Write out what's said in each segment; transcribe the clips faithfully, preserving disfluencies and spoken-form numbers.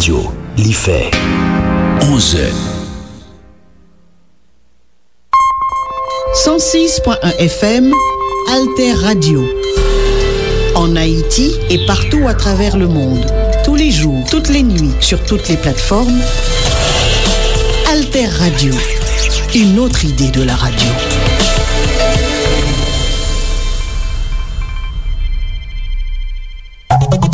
Li fè onz è. Cent six point un F M, Alter Radio. En Haïti et partout à travers le monde. Tous les jours, toutes les nuits, sur toutes les plateformes. Alter Radio, une autre idée de la radio.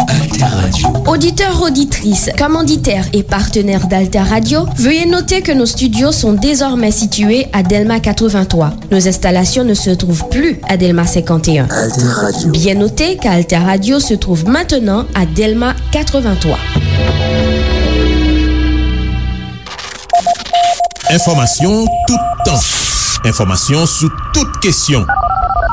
Alter Radio. Oditè, oditris, kòmanditè e patenè d'Alter Radio, veuillez noter que nos studios sont désormais situés à Delma quatre-vingt-trois. Nos installations ne se trouvent plus à Delma cinquante et un. Alter Radio. Bien noter qu'Alter Radio se trouve maintenant à Delma quatre-vingt-trois. Enfòmasyon toutan. Enfòmasyon sou tout kesyon.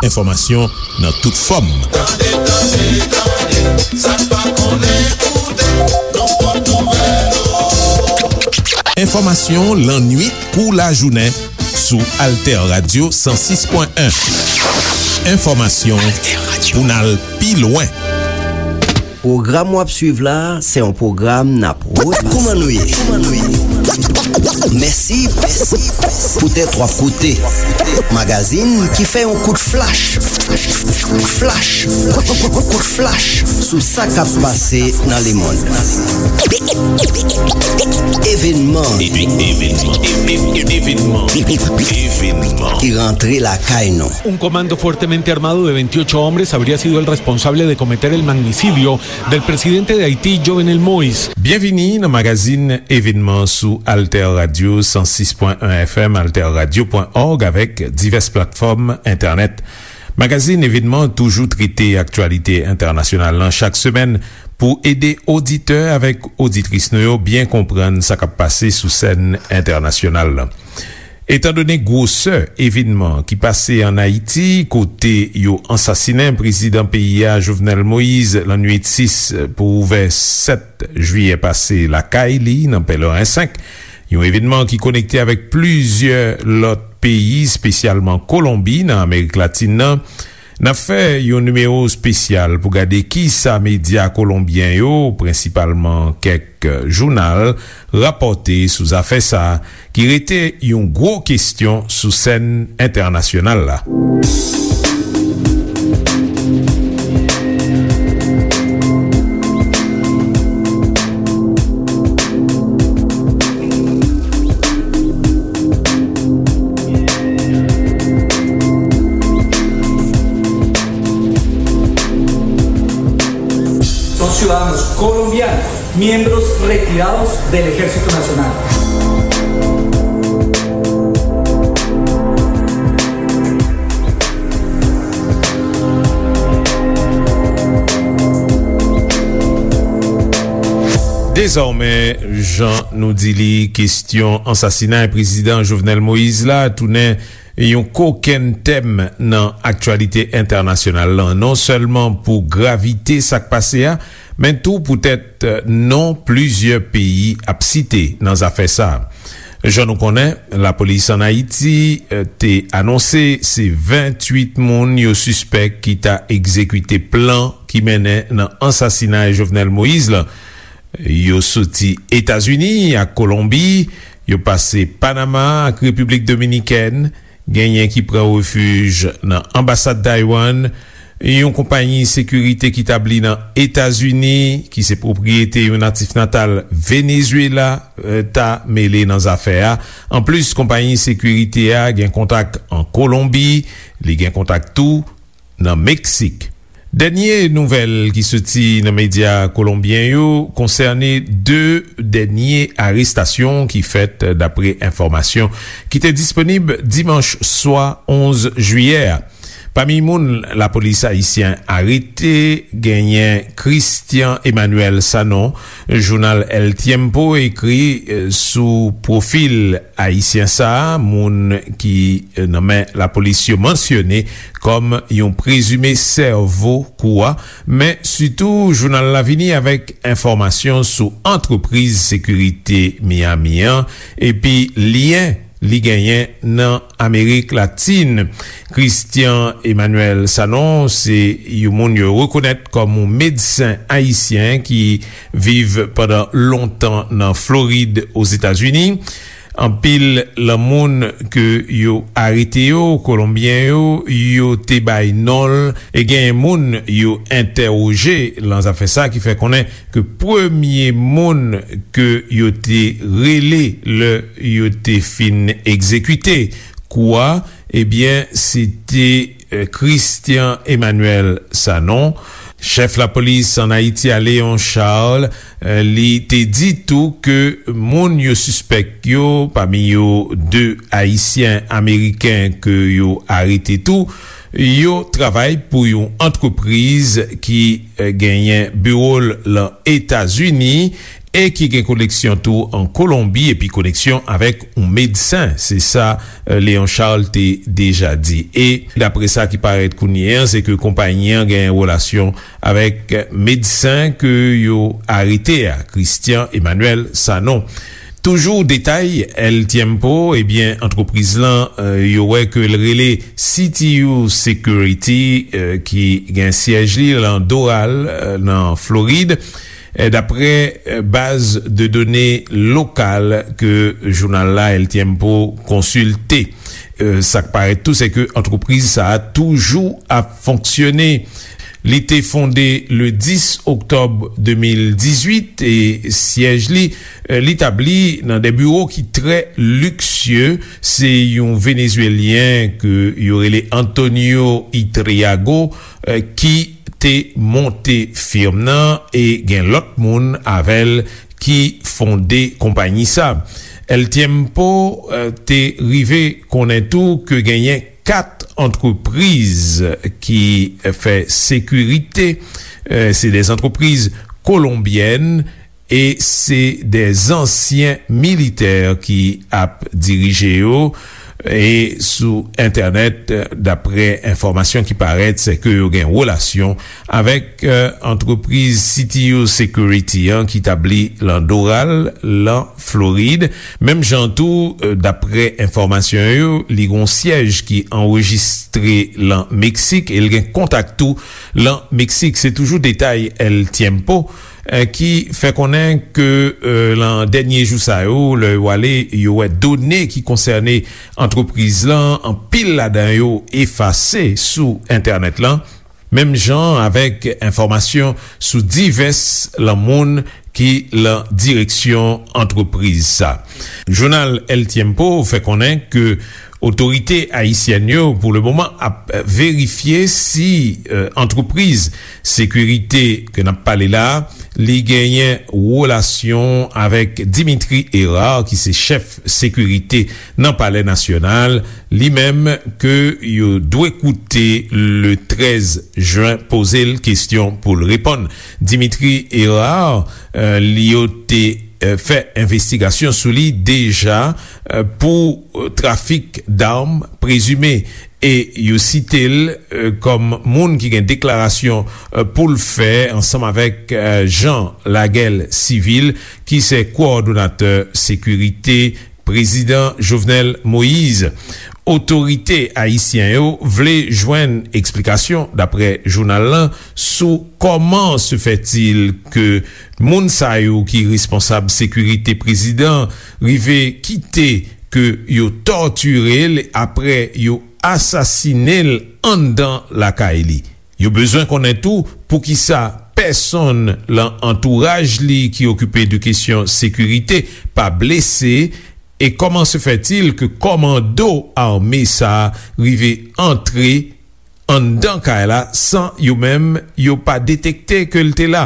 Enfòmasyon nan tout fòm. Tande, tande, tande, sa n pa konnen, koute, nou pot nouvèl ou. Enfòmasyon lannuit kou lajounen sou Alter Radio san sis pwen en. Enfòmasyon pou n al pi lwen. Pwogram w ap swiv la, se yon pwogram n ap pwodui. Kòman nou ye? Mèsi, mèsi, poutèt w ap koute magazin ki fè yon kout flach, flach, kout flach sou sa k ap pase nan lemonn. Evènman. Evènman. Evènman. Evènman. Evènman. Ki rantre lakay nou. Un comando fuertemente armado de veintiocho hombres habría sido el responsable de cometer el magnicidio del presidente de Haití, Jovenel Moïse. Byenvini nan magazin Evènman sou Alter Radio san sis pwen en F M, alterradio pwen org avèk divès platfòm entènèt. Magazin Evènman toujou trete aktyalite entènasyonal lan chak semèn pou ede oditè avèk oditris nou yo byen konprann sa k ap pase sou sèn entènasyonal lan. Etandone gwosè evènman ki pase ann Ayiti, kote yo ansasinen prezidan peyi a, Jovenel Moïse, lannuit sis pou ouvè sèt jiyè pase lakay li, nan Pèleren senk, yon evènman ki konekte avèk plizyè lòt peyi, espesyalman Kolonbi, nan Amerik Latin nan, n ap fè yon nimewo espesyal pou gade kisa medya kolonbyen yo, prensipalman kèk jounal, rapòte sou zafè sa a, ki rete yon gwo kesyon sou sèn entènasyonal la. Son ciudadanos colombianos, miembros retirados del Ejército Nacional. Dezòmè, jan nou di li, kesyon ansasinay prezidan Jovenel Moïse la tounen yon kokenn tèm nan aktyalite entènasyonal lan, non sèlman pou gravite sa k pase a, men tou poutèt non plizyè peyi ap site nan zafè sa a. Jan nou konnen, lapolis ann Ayiti, eh, te anonse se venntuit moun yo sispèk ki ta egzekite plan ki mennen nan ansasinay Jovenel Moïse lan. Yo soti Etazini ak Kolonbi, yo pase Panama ak Repiblik Dominikèn, genyen ki pran refij nan anbasad Taiwan, yon konpayi sekirite ki tabli nan Etazini, ki se pwopriyete yon natif natal Venezuela, eh, ta mele nan zafè a. Anplis, konpayi sekirite a gen kontak an Kolonbi, li gen kontak tou nan Meksik. Dènye nouvèl ki soti nan medya kolonbyen yo konsène de dènye arestasyon ki fèt, dapre enfòmasyon ki te disponib dimanch swa onz jiyè a. Pami moun lapolis ayisyen arete, genyen Christian Emmanuel Sanon. Jounal El Tiempo ekri, eh, sou pwofil ayisyen sa a, moun ki, eh, nan men lapolis yo mansyone kòm yon prezime sèvo kou a, men sitou jounal la vini avèk enfòmasyon sou antrepriz sekirite Miami an, epi lyen li genyen nan Amerik Latin. Christian Emmanuel Sanon se yon moun yo rekonèt kòm yon medsen ayisyen ki viv pandan lontan nan Florid, Ozetazini. Anpil lan moun ke yo arete yo, Kolonbyen yo, yo te bay non l, e genyen moun yo entèwoje lan zafè sa, ki fè konnen ke premye moun ke yo te rele lè yo te fin egzekite kou a, ebyen, se te, eh, Christian Emmanuel Sanon. Chèf lapolis ann Ayiti a, Léon Charles, eh, li te di tou ke moun yo sispèk yo, pami yo de Ayisyen Ameriken ke yo arete tou, yo travay pou yon antrepriz ki, eh, genyen biwo l lan Etazini e ki gen koneksyon tou an Kolonbi epi koneksyon avèk yon medsen. Se sa, eh, Léon Charles te deja di. E dapre sa ki parèt kounye a, se ke konpayi an gen relasyon avèk medsen ke yo arete a, Christian Emmanuel Sanon. Toujou detay El Tiempo, ebyen, antrepriz lan, eh, yo wè ke l rele C T U Security, eh, ki gen syèj li lan Doral, eh, nan Florid. Eh, dapre, eh, baz de done lokal ke jounal la, El Tiempo, konsilte. Eh, sa k parèt tou, se ke antrepriz sa a toujou ap fonksyone. Li te fonde le dis oktòb de mil dizuit e syèj li, eh, li tabli nan de biwo ki trè liksye. Se yon Venezwelyen ke yo rele Antonio Itriago, eh, ki te monte firm nan e gen lòt moun avè l ki fonde konpayi sa. El Tiempo, eh, te rive konnen tou ke genyen kat antrepriz ki fè sekirite, eh, se de antrepriz kolonbyèn e se de ansyen militè ki ap dirije yo. E sou entènèt, dapre enfòmasyon ki parèt, se ke yo gen relasyon avèk, eh, antrepriz C T U Security an ki tabli lan Doral, lan Florid. Menm jan tou, eh, dapre enfòmasyon yo, li gon syèj ki anrejistre lan Meksik e l gen kontak tou lan Meksik. Se toujou detay El Tiempo, eh, ki fè konnen ke, eh, lan dènye jou sa yo, lè yo ale, yo wè done ki konsène antrepriz lan, anpil ladan yo efase sou entènèt lan, menm jan avèk enfòmasyon sou divès lan moun ki lan direksyon antrepriz sa. Jounal El Tiempo fè konnen ke otorite ayisyèn yo, pou le moman, ap verifye si, eh, antrepriz sekirite ke n ap pale la, li genyen relasyon avèk Dimitri Hérard, ki se chèf sekirite nan Palè Nasyonal, li menm ke yo dwe koute le trèz jen, poze l kesyon pou l reponn. Dimitri Hérard, eh, li yo te, eh, fè envestigasyon sou li deja, eh, pou, eh, trafik dam prezime. E yo site l, eh, kòm moun ki gen deklarasyon, eh, pou l fè ansanm avèk, eh, Jean Laguel Civil, ki se kowòdonatè sekirite Prezidan Jovenel Moïse. Otorite ayisyen yo vle jwenn eksplikasyon, dapre jounal lan, sou kòman se fètil ke moun sa yo ki responsab sekirite prezidan rive kite ke yo tòtire l apre yo asasine l anndan lakay li. Yo bezwen konnen tou poukisa pèsonn lan antouraj li ki okipe de kesyon sekirite pa blese, e kòman se fètil ke kòmando ame sa a rive antre anndan kay la san yo menm yo pa detekte ke l te la,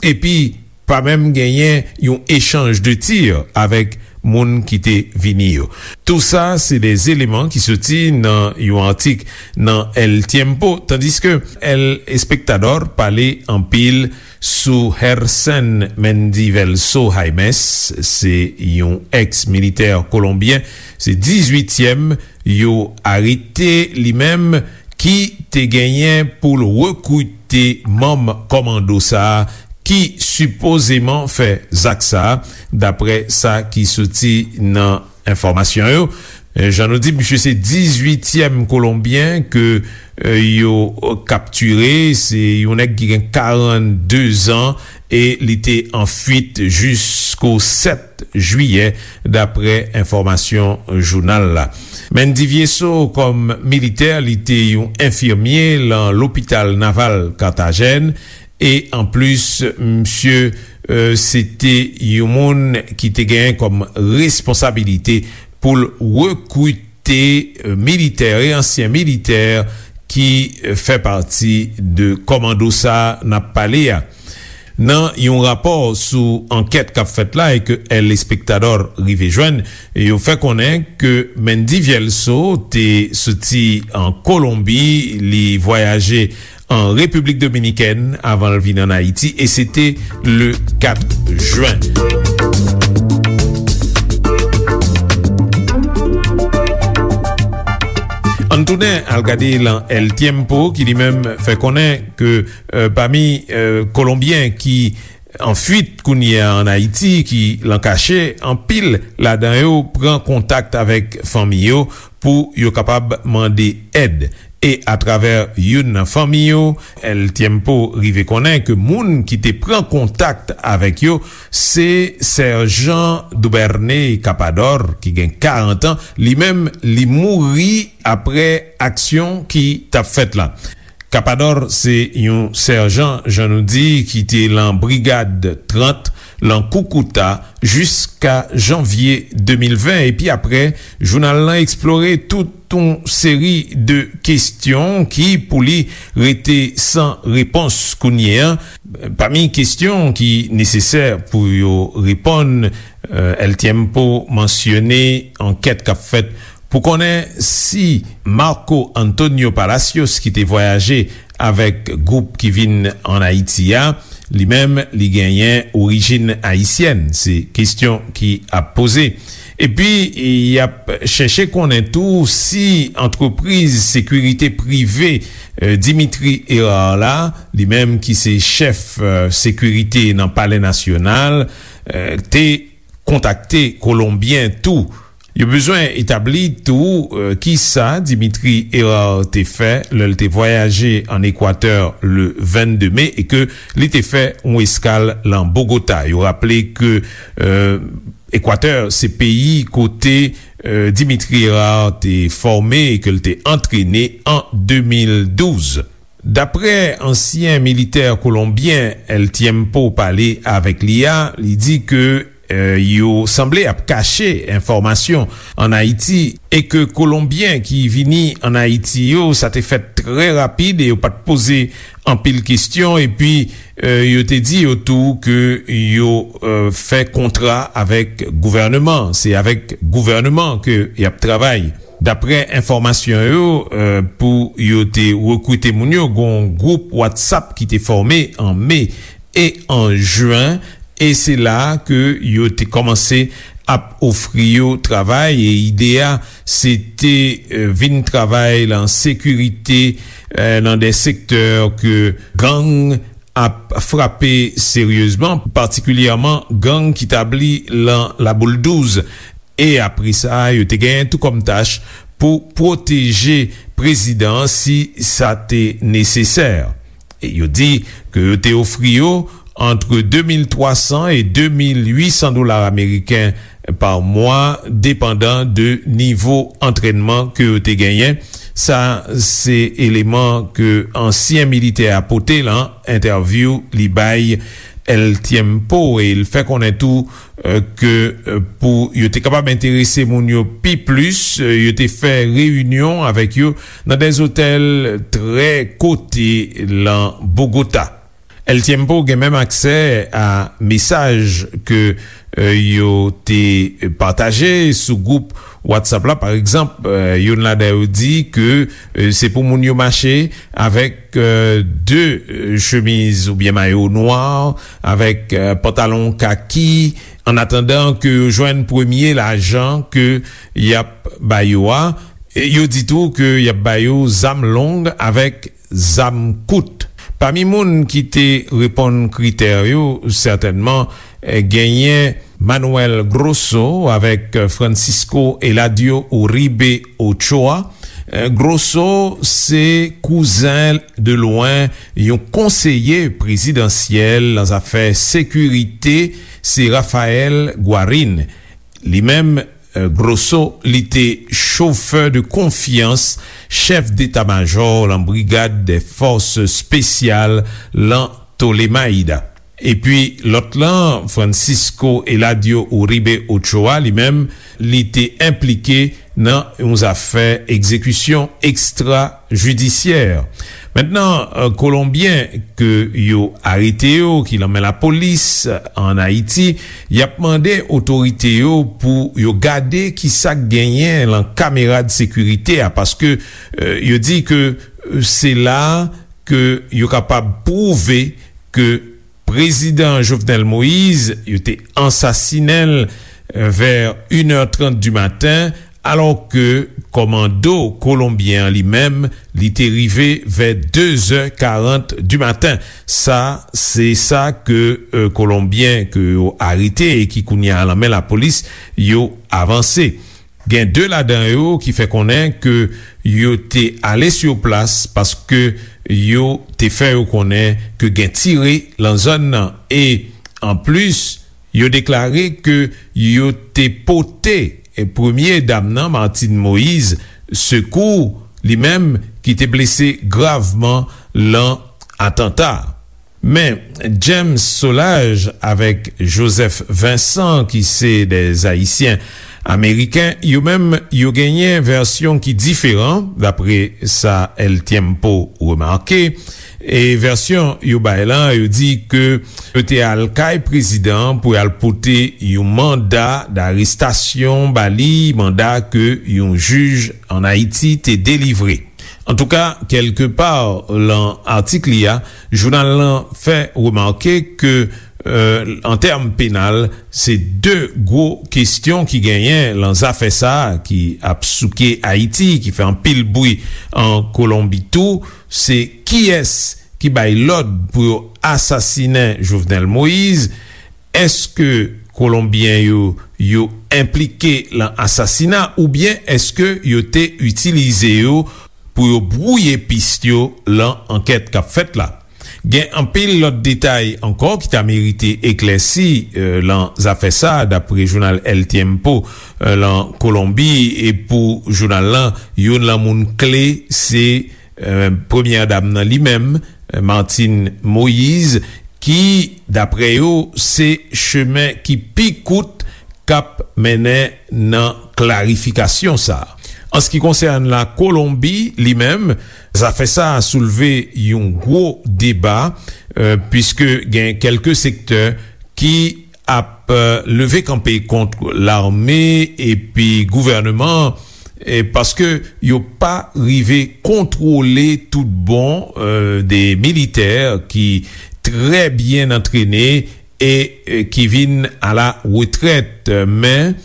epi pa menm genyen yon echanj de tir avèk moun ki te vini yo. Tou sa se de eleman ki soti nan yon atik nan El Tiempo, tandiske El Espectador pale anpil sou Hersen Mendivelso Jaimes, se yon èks militè kolonbyen, se dizuityèm yo arete li menm, ki te genyen pou l rekrite manm kòmando sa a ki sipozeman fè zak sa a, dapre sa ki soti nan enfòmasyon yo. Eh, jan nou di, misye se dizuityèm Kolonbyen ke, eh, yo kaptire. Se yon nèg ki gen karannde zan e li te an fuit jisko sèt jiyè, dapre enfòmasyon jounal la. Mendy Viesso, kòm militè, li te yon enfimye lan lopital naval Carthagène. E anplis, misye, eh, se te yon moun ki te genyen kòm responsabilite pou l rekrite, eh, militè e ansyen militè ki, eh, fè pati de kòmando sa a n ap pale a. Nan yon rapò sou ankèt k ap fèt la e ke El Espectador rive jwenn, yo fè konnen ke Mendy Vielso te soti an Kolonbi, li vwayaje an Repiblik Dominikèn avan l vin ann Ayiti, e se te le kat jen. Ann tounen al gade lan El Tiempo, ki li menm fè konnen ke, eh, pami, eh, Kolonbyen ki an fuit kounye a ann Ayiti, ki lan kache, anpil ladan yo pran kontak avèk fanmi yo pou yo kapab mande èd. E atravè youn nan fanmi yo, El Tiempo rive konnen ke moun ki te pran kontak avèk yo se Sèjan Dubernay Capador, ki gen karant an. Li menm, li mouri apre aksyon ki t ap fèt la. Capador se yon sèjan, jan nou di, ki te lan Brigad trant, lan Koukouta, jiska janvye de mil ven. Epi apre, jounal lan eksplore tout yon seri de kesyon ki, pou li, rete san repons kounye a. Pami kesyon ki nesesè pou yo reponn, eh, El Tiempo mansyone ankèt k ap fèt pou konnen si Marco Antonio Palacios, ki te vwayaje avèk gwoup ki vin ann Ayiti a, li menm, li genyen orijin ayisyèn. Se kesyon ki ap poze. Epi, y ap chèche konnen tou si antrepriz sekirite prive, eh, Dimitri Hérard la, li menm ki se chèf, eh, sekirite nan Palè Nasyonal, eh, te kontakte Kolonbyen tou. Yo bezwen etabli tou, eh, kisa Dimitri Hérard te fè lè l te vwayaje ann Ekwatè le vennde me e ke li te fè yon eskal lan Bogota. Yo raple ke, eh, Ekwatè se peyi kote, eh, Dimitri Hérard te fòme e ke l te antrene an de mil douz. Dapre ansyen militè kolonbyen El Tiempo pale avèk li a, li di ke, eh, yo sanble ap kache enfòmasyon ann Ayiti e ke Kolonbyen ki vini ann Ayiti yo, sa te fèt trè rapid e yo pa t poze anpil kesyon. Epi, eh, yo te di yo tou ke yo, eh, fè kontra avèk gouvèneman. Se avèk gouvèneman ke y ap travay. Dapre enfòmasyon yo, eh, pou yo te rekrite moun yo, gen yon gwoup WhatsApp ki te fòme an me e an jen, e se la ke yo te kòmanse ap ofri yo travay, e ide a, se te, eh, vin travay lan sekirite, eh, lan de sektè ke gang ap frape seryezman, patikilyèman gang ki tabli lan Laboul douz. E apre sa, yo te genyen tou kòm tach pou pwoteje prezidan an si sa te nesesè. E yo di ke yo te ofri yo ant de mil twa san e de mil uit san dola ameriken pa mwa, depandan de nivo antrènman ke yo te genyen. Sa se eleman ke ansyen militè a pote lan entèvyou li bay El Tiempo, e l fè konnen tou, eh, ke, eh, pou yo te kapab enterese moun yo pi plis, eh, yo te fè reyinyon avèk yo nan de zotèl trè kote lan Bogota. El Tiempo gen menm aksè a mesaj ke, eh, yo te pataje sou gwoup WhatsApp la. Pa egzanp, eh, youn ladan yo di ke, eh, se pou moun yo mache avèk, eh, de, eh, chemiz oubyen mayo nwa, avèk, eh, pantalon kaki, an atandan ke yo jwenn premye lajan ke y ap ba yo a. E yo di tou ke y ap ba yo zam long avèk zam kout. Pami moun ki te reponn kritè yo, sètènman, eh, genyen Manuel Grosso avèk Francisco Eladio Uribe Ochoa. Grosso se kouzen de lwen yon konseye prezidansyèl nan zafè sekirite, se Rafael Guarin. Li menm, Grosso, li te chofè de konfyans chèf deta majò lan Brigad dè Fòs Espesyal lan Tolemaida. Epi lòt lan, Francisco Eladio Uribe Ochoa, li menm, li te enplike nan yon zafè egzekisyon ekstrajidisyè. Mentnan, Kolonbyen ke yo arete yo, ki lan men lapolis ann Ayiti, y ap mande otorite yo pou yo gade ki sa k genyen lan kamera de sekirite a, paske yo di ke se la ke yo kapab pwouve ke Prezidan Jovenel Moïse, yo te ansasinen l vè inè trant di maten, alò ke kòmando kolonbyen an li menm, li te rive vè de zè karant di maten. Sa, se sa ke Kolonbyen ke yo arete e ki kounye a lan men lapolis, yo avanse. Gen de ladan yo ki fè konnen ke yo te ale sou plas paske yo te fè yo konnen ke gen tire lan zòn nan. E anplis, yo deklare ke yo te pote premye dam nan, Martine Moïse, sekou, li menm ki te blese gravman lan atanta. Men James Solages avèk Joseph Vincent, ki se de Ayisyen Ameriken, yo menm, yo genyen vèsyon ki diferan, dapre sa El Tiempo remake. E vèsyon yo bay lan, yo di ke yo te al kay prezidan an pou y al pote yon manda darestasyon ba li, manda ke yon jij ann Ayiti te delivre. Antouka, kèlkepa lan atik li a, jounal lan fè remake ke, an tèm penal, se de gwo kesyon ki genyen lan zafè sa a ki ap souke Ayiti, ki fè anpil bri an Kolonbi tou, se kiyès ki bay lòd pou yo asasinen Jovenel Moïse? Èske Kolonbyen yo, yo enplike lan asasina oubyen èske yo te itilize yo pou yo bwouye pis yo lan ankèt k ap fèt la? Gen anpil lòt detay ankò ki ta merite eklèsi lan zafè sa a, dapre jounal El Tiempo lan Kolonbi. E pou jounal lan, youn lan moun kle se premyè dam nan li menm, Martine Moïse, ki, dapre yo, se chemen ki pi kout k ap mennen nan klarifikasyon sa a. An se ki konsène la Kolonbi li menm, zafè sa a soulve yon gwo deba, piske gen kèlke sektè ki ap leve kanpe kont lame epi gouvènman an, paske yo pa rive kontwole tout bon de militè ki trè byen antrene e ki vin a la retrèt. Men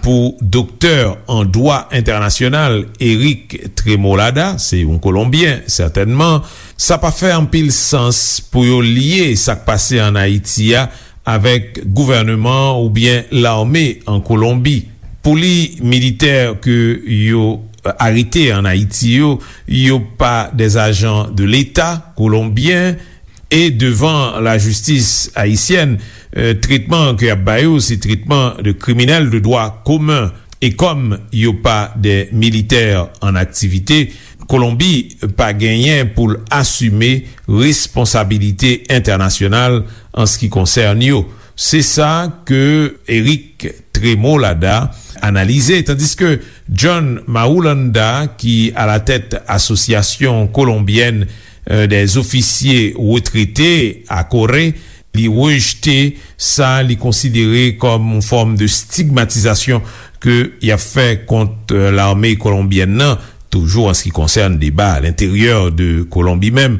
pou doktè an dwa entènasyonal Eric Tremolada, se yon Kolonbyen sètènman, sa pa fè anpil sans pou yo lye sa k pase ann Ayiti a avèk gouvènman oubyen lame an Kolonbi. Pou li, militè ke yo arete ann Ayiti yo, yo pa de ajan de Leta kolonbyen, e devan lajistis ayisyèn, tretman ke y ap ba yo se tretman de kriminèl de dwa komen. E kòm yo pa de militè an aktivite, Kolonbi pa genyen pou l asime responsabilite entènasyonal an se ki konsène yo. Se sa ke Eric Tremolada analize, tandiske John Marulanda, ki alatèt Asosyasyon Kolonbyèn dè Zofisye Retrete, ACORRE, li rejte sa li konsidere kòm yon fòm de stigmatizasyon ke y ap fè kont lame kolonbyèn nan, toujou an se ki konsène deba a lenteryè de Kolonbi menm.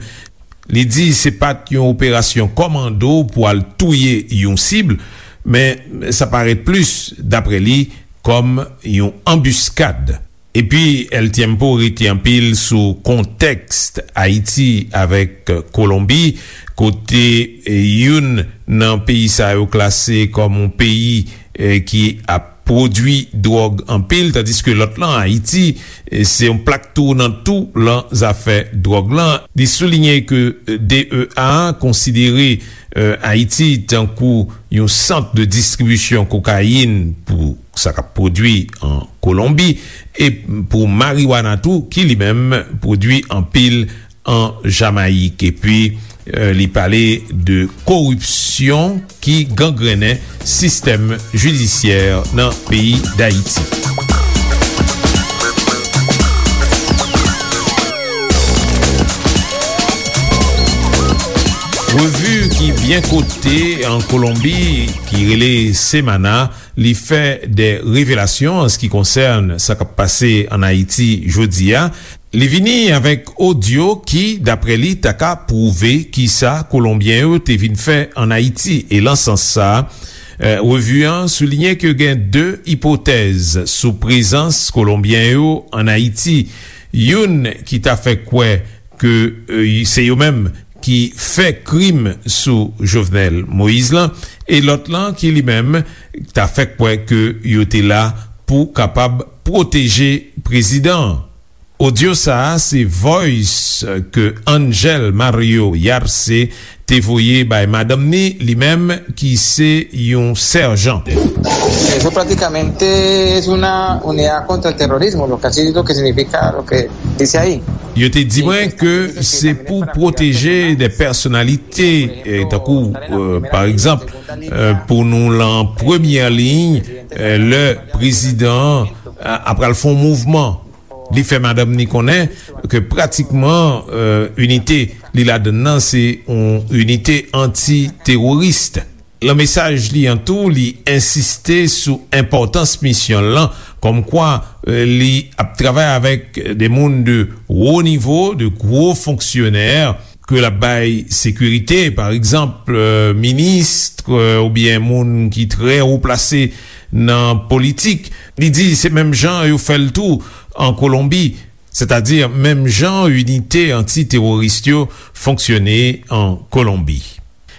Li di se pa t yon operasyon kòmando pou al touye yon sib, men sa parèt plis, dapre li, kòm yon anbiskad. Epi El Tiempo rete anpil sou kontèks Ayiti avèk Kolonbi, kote youn nan peyi sa yo klase kòm yon peyi eh, ki ap pwodui dwòg anpil, tandiske lòt lan, Ayiti, eh, se yon plak tounant tou lan zafè dwòg lan. Li soulinye ke, eh, D E A konsidere, eh, Ayiti tankou yon sant de distribisyon kokayin pou sa k ap pwodui an Kolonbi, e pou mariwana tou, ki li menm pwodui anpil an Jamayik. Epi, eh, li pale de koripsyon ki gangrennen sistèm jidisyè nan peyi Dayiti. Revi ki byen kote an Kolonbi, ki rele Semana, li fè de revelasyon an se ki konsène sa k ap pase an Ayiti jodi a. Li vini avèk odyo ki, daprè li, ta ka pwouve kisa Kolonbyen yo te vin fè an Ayiti. E lan sans sa a, eh, revi an soulinye ke gen de ipotèz sou prezans Kolonbyen yo an Ayiti. Youn ki ta fè kwè ke, eh, se yo menm ki fè krim sou Jovenel Moïse lan, e lòt lan ki li menm ta fè kwè ke yo te la pou kapab pwoteje prezidan an. Odyo sa a se voice ke Angel Mario Yarce te voye bay madanm ni, li menm ki se yon sèjan. Eso prácticamente es una unidad contra el terrorismo, lo que así lo que significa lo que dice ahí. Yo te di mwen ke se pou pwoteje de pèsonalite, eh, tankou, eh, pa egzanp, eh, pou nou lan premyè liy, eh, lè prezidan an, eh, ap pral fè yon mouvman. Li fè madanm ni konnen ke pratikman, eh, inite li ladann nan se yon inite anti-teworis. Lan mesaj li an tou, li ensiste sou enpòtans misyon l lan, kòmkwa, eh, li ap travay avèk de moun de wo nivo, de gwo fonksyonè, ke l ap bay sekirite, pa egzanp, eh, minis, eh, oubyen moun ki trè wo plase nan politik. Li di se menm jan yo fè l tou an Kolonbi, sètadi menm jan inite anti-teworis yo fonksyone an Kolonbi.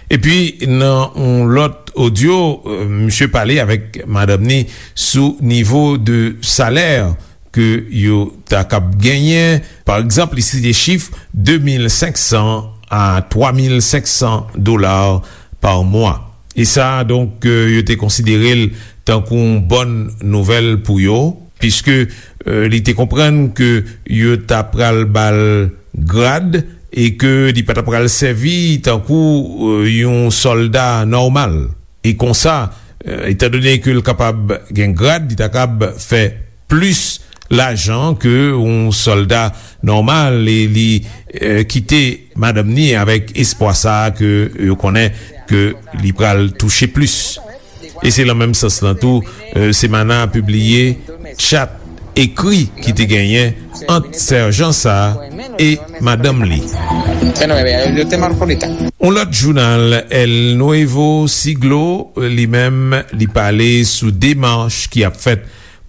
Epi, nan yon lòt odyo, eh, misye pale avèk madanm ni sou nivo de salè ke yo ta kab genyen. Pa egzanp, li site chif de mil senk san a twa mil senk san dola pa mwa. E sa, donk, eh, yo te konsidere l tankou yon bòn nouvèl pou yo, piske, eh, li te konprann ke yo ta pral ba l grad e ke li pa ta pral sèvi tankou, eh, yon sòlda nòmal. E konsa, eh, etandone ke l kapab gen grad, li ta kab fè plis lajan ke yon sòlda nòmal, e li, eh, kite madanm ni avèk espwa sa a ke yo konnen ke li pral touche plis. E se lan menm sans lan tou, eh, Semana pibliye chat ekri ki te genyen ant sèjan sa a e madanm li. Yon lòt jounal, El Nuevo Siglo, li menm, li pale sou demach ki ap fèt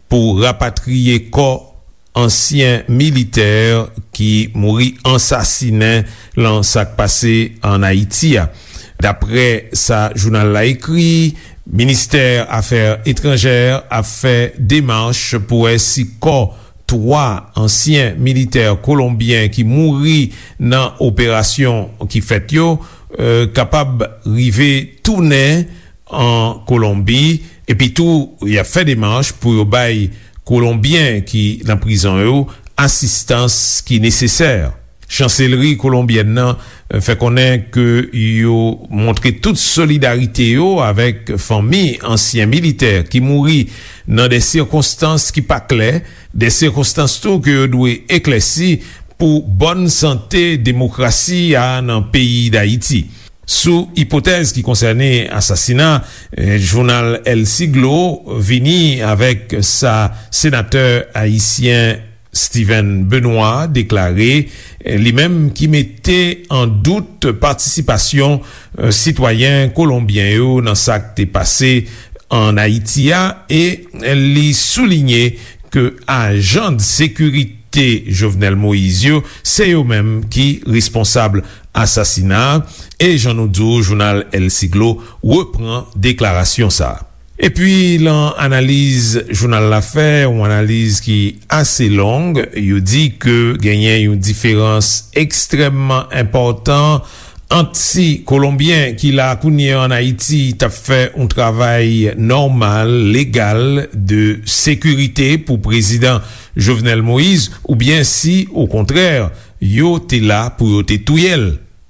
pou rapatriye kò ansyen militè ki mouri ansasinen lan sa k pase an Ayiti a. Daprè sa jounal la ekri, ministè afè etranjè ap fè demach pou wè si kò twa ansyen militè kolonbyen ki mouri nan operasyon ki fèt yo, eh, kapab rive tounen an Kolonbi, epi tou y ap fè demach pou yo bay Kolonbyen ki nan prizon yo asistans ki nesesè. Chanselri kolonbyèn nan, eh, fè konnen ke yo montre tout solidarite yo avèk fanmi ansyen militè ki mouri nan de sikonstans ki pa klè, de sikonstans tou ke yo dwe eklèsi pou bòn sante demokrasi a nan peyi Dayiti. Sou ipotèz ki konsène asasina, eh, jounal El Siglo vini avèk sa senatè ayisyen Steven Benoît deklare, eh, li menm ki mete an dout patisipasyon, eh, sitwayen kolonbyen yo nan sa k te pase an Ayiti a, e li soulinye ke ajan de sekirite Jovenel Moïse yo, se yo menm ki responsab asasina a, e jan nou di w, jounal El Siglo repran deklarasyon sa a. Epi, lan analiz jounal la fè, yon analiz ki ase long, yo di ke genyen yon diferans ekstrèmman enpòtan ant si Kolonbyen ki la kounye a ann Ayiti t ap fè yon travay nòmal, legal, de sekirite pou prezidan Jovenel Moïse, oubyen si, okontrè, yo te la pou yo te touye l.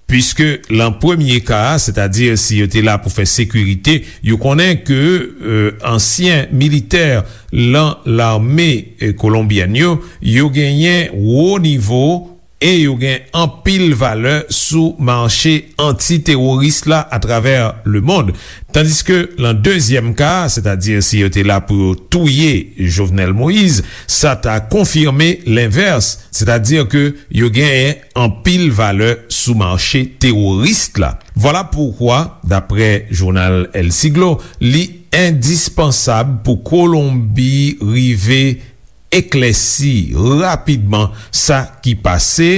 Piske lan premye ka a, sètadi si yo te la pou fè sekirite, yo konnen ke, e, ansyen militè lan lame, e, kolonbyèn yo, yo genyen wo nivo e yo gen anpil valè sou mache anti-teworis la atravè lemonn. Tandiske lan dezyèm ka a, sètadi si yo te la pou yo touye Jovenel Moïse, sa ta konfime lenvès, sètadi ke yo genyen anpil valè sou mache teworis la. Vwala poukwa, daprè jounal El Siglo, li endispansab pou Kolonbi rive eklèsi rapidman sa ki pase,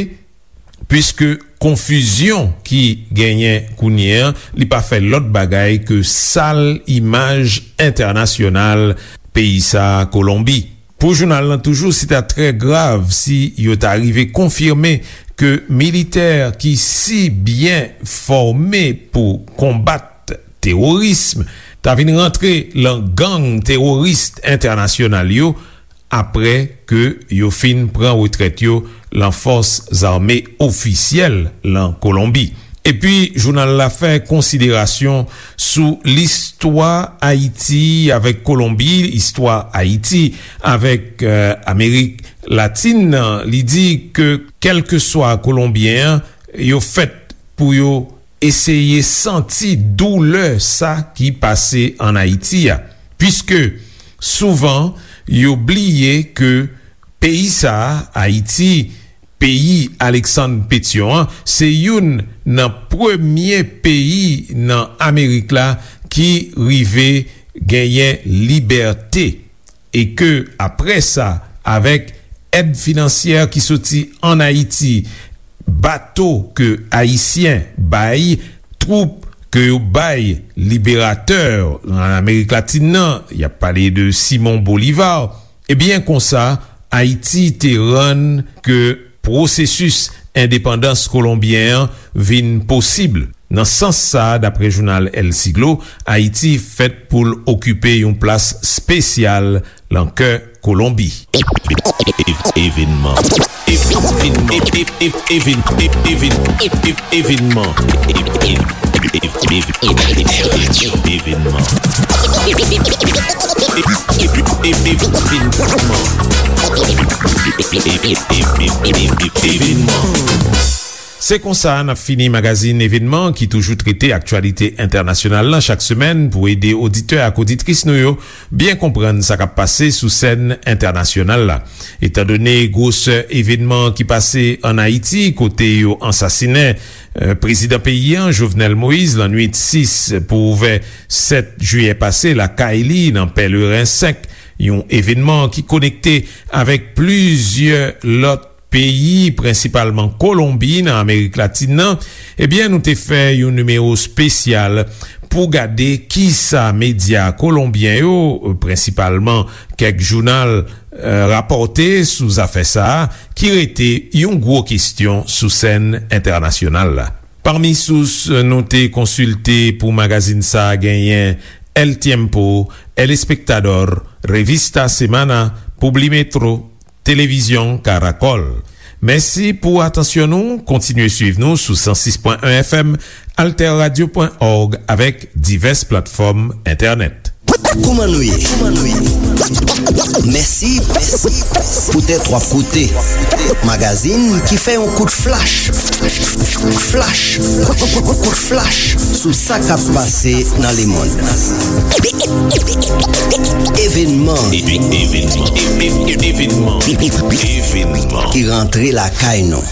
piske konfizyon ki genyen kounye a, li pa fè lòt bagay ke sal imaj entènasyonal peyi sa a, Kolonbi. Pou jounal lan toujou, se ta trè grav si yo ta rive konfime ke militè ki si byen fòme pou konbat teworism ta vin rantre lan gang teworis entènasyonal yo, apre ke yo fin pran retrèt yo lan fòs zame ofisyèl lan Kolonbi. Epi, jounal la fè konsiderasyon sou listwa Ayiti avèk Kolonbi, istwa Ayiti avèk, e, Amerik Latin nan. Li di ke, kèlkeswa Kolonbyen an, yo fèt pou yo eseye santi doulè sa ki pase ann Ayiti a, piske souvan yo bliye ke peyi sa a, Ayiti, peyi Aleksann Petyon an, se youn nan premye peyi nan Amerik la ki rive genyen libète, e ke, apre sa, avèk èd finansyè ki soti ann Ayiti, bato ke Ayisyen bay, twoup ke yo bay liberatè an Amerik Latin nan, y ap pale de Simon Bolivar, ebyen, konsa, Ayiti te rann ke pwosesis endepandans kolonbyen an vin posib. Nan sans sa a, daprè jounal El Siglo, Ayiti fèt pou l okipe yon plas espesyal lan kè Kolonbi. Evenman. Evenman. Evenman. Evenman. Se konsa n ap fini magazin Evenman ki toujou trete aktyalite entènasyonal lan chak semèn pou ede oditè ak oditris nou yo byen konprann sa k ap pase sou sèn entènasyonal la. Etandone gwosè evenman ki pase ann Ayiti, kote yo ansasinen, e, prezidan peyi a, Jovenel Moïse, lannwit sis pou ouvè sèt jiyè pase, lakay li nan Pèleren senk, yon evenman ki konekte avèk plizyè lòt peyi, prensipalman Kolonbi, nan Amerik Latin nan, ebyen, nou te fè yon nimewo espesyal pou gade kisa medya kolonbyen yo, prensipalman kèk jounal, e, rapòte sou zafè sa a, ki rete yon gwo kesyon sou sèn entènasyonal la. Pami sous nou te konsilte pou magazin sa a genyen El Tiempo, El Espectador, Revista Semana, Publimetro, Televizyon Caracol. Mèsi pou atansyon nou. Kontinye swiv nou sou san sis pwen en F M, alterradio pwen org avèk divès platfòm entènèt. Kouman nou ye? Mèsi poutèt w ap koute magazin ki fè yon kout flach, flach, kout flach sou sa k ap pase nan lemonn. Evenman. Evenman. Evenman. Evenman. Ki rantre lakay nou.